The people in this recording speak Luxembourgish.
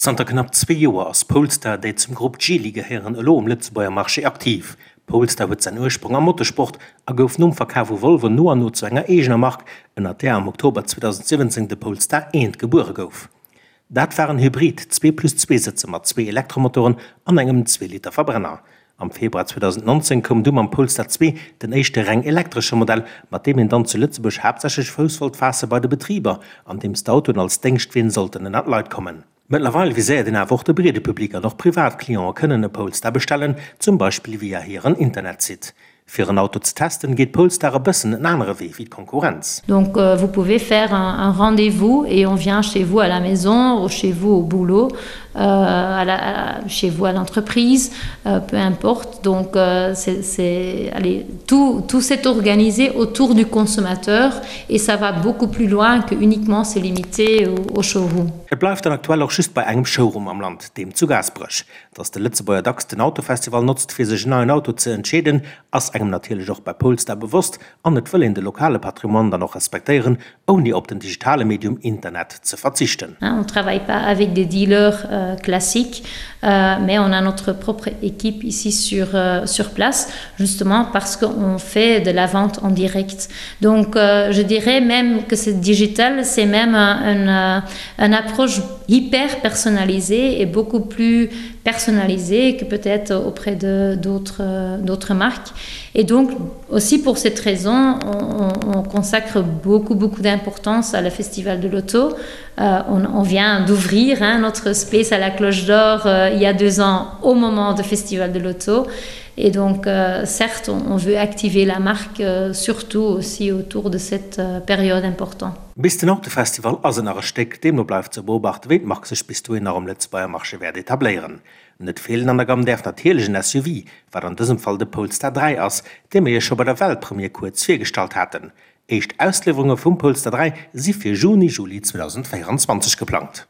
Zanter knapp zwee Joer ass Polestar, déi zum Grupp Geely gehéieren, elo um Lëtzebuerger Marché aktiv. Polestar huet säin Ursprong am Motorsport a gouf nom Verkaf u Volvo no an no zu enger eegener Mark, ënnert där am Oktober 2017 de Polestar 1 gebuere gouf. Dat war en Hybrid, zwee plus zwee Sëtzer mat zwee Elektromotoren an engem Zweeliter-Verbrenner. Am Februar 2019 koum du mam Polestar 2 den éischte reng elektresche Modell, mat deem een dann zu Lëtzebuerg haaptsächlech Fouss wollt faasse bei de Betriber, andeems d'Autoen als Déngschtween sollten ënnert d'Leit kommen. Mëttlerweil viséiert een awer och de breede Public an och privat Cliente kënnen e Polestar bestellen, zum Beispill via hiren Internetsite. Fir en Auto ze testen, geet Polestar e bëssen en anere Wee wéi d'Konkurrenz. Donc vous pouvez faire un, un rendez-vous et on vient chez vous à la maison ou chez vous au boulot, euh, à la, à, chez vous à l'entreprise, euh, peu importe. Donc euh, c'est allez, tout, tout s'est organisé autour du consommateur et ça va beaucoup plus loin que uniquement se limiter au, au showroom. Et bleift dann aktuell och just bei engem Showroom am Land, deem zu Gaasperech. Dass de Lëtzebuerger dacks den Autofestival notzt fir sech en neien Auto ze entscheeden, ass engem natierlech och bei Polestar bewosst an et wëll een de lokale Patrimoine dann och respektéieren, ouni op den digitale Medium Internet ze verzichten. On travaille pas avec des dealers classiques, mais on a notre propre équipe ici sur sur place, justement parce qu'on fait de la vente en direct. Donc je dirais même que ce digital, c'est même un un approche hyper personnalisée et beaucoup plus personnalisée que peut-être auprès de d'autres d'autres marques. Et donc aussi pour cette raison, on, on consacre beaucoup beaucoup d'importance à la festival de l'auto. Euh, on, on vient d'ouvrir notre space à la cloche d'or euh, il y a deux ans au moment du festival de l'auto. Et donc euh, certes, on, on veut activer la marque euh, surtout aussi autour de cette euh, période importante. Bis den Autofestival ass et nach e Stéck, deemno bleift ze beobachten, wéi d'Mark sech bis dohin nach um Lëtzebuerger Marché wäert etabléieren. Net feelen an der Gamm däerf natierlech en SUV, wat an dësem Fall de Polestar 3 ass, dee mir iech scho bei der Weltpremier kuerz virgestallt haten. Éischt Ausliwwerunge vum Polestar 3 si fir Juni, Juli 2024 geplangt.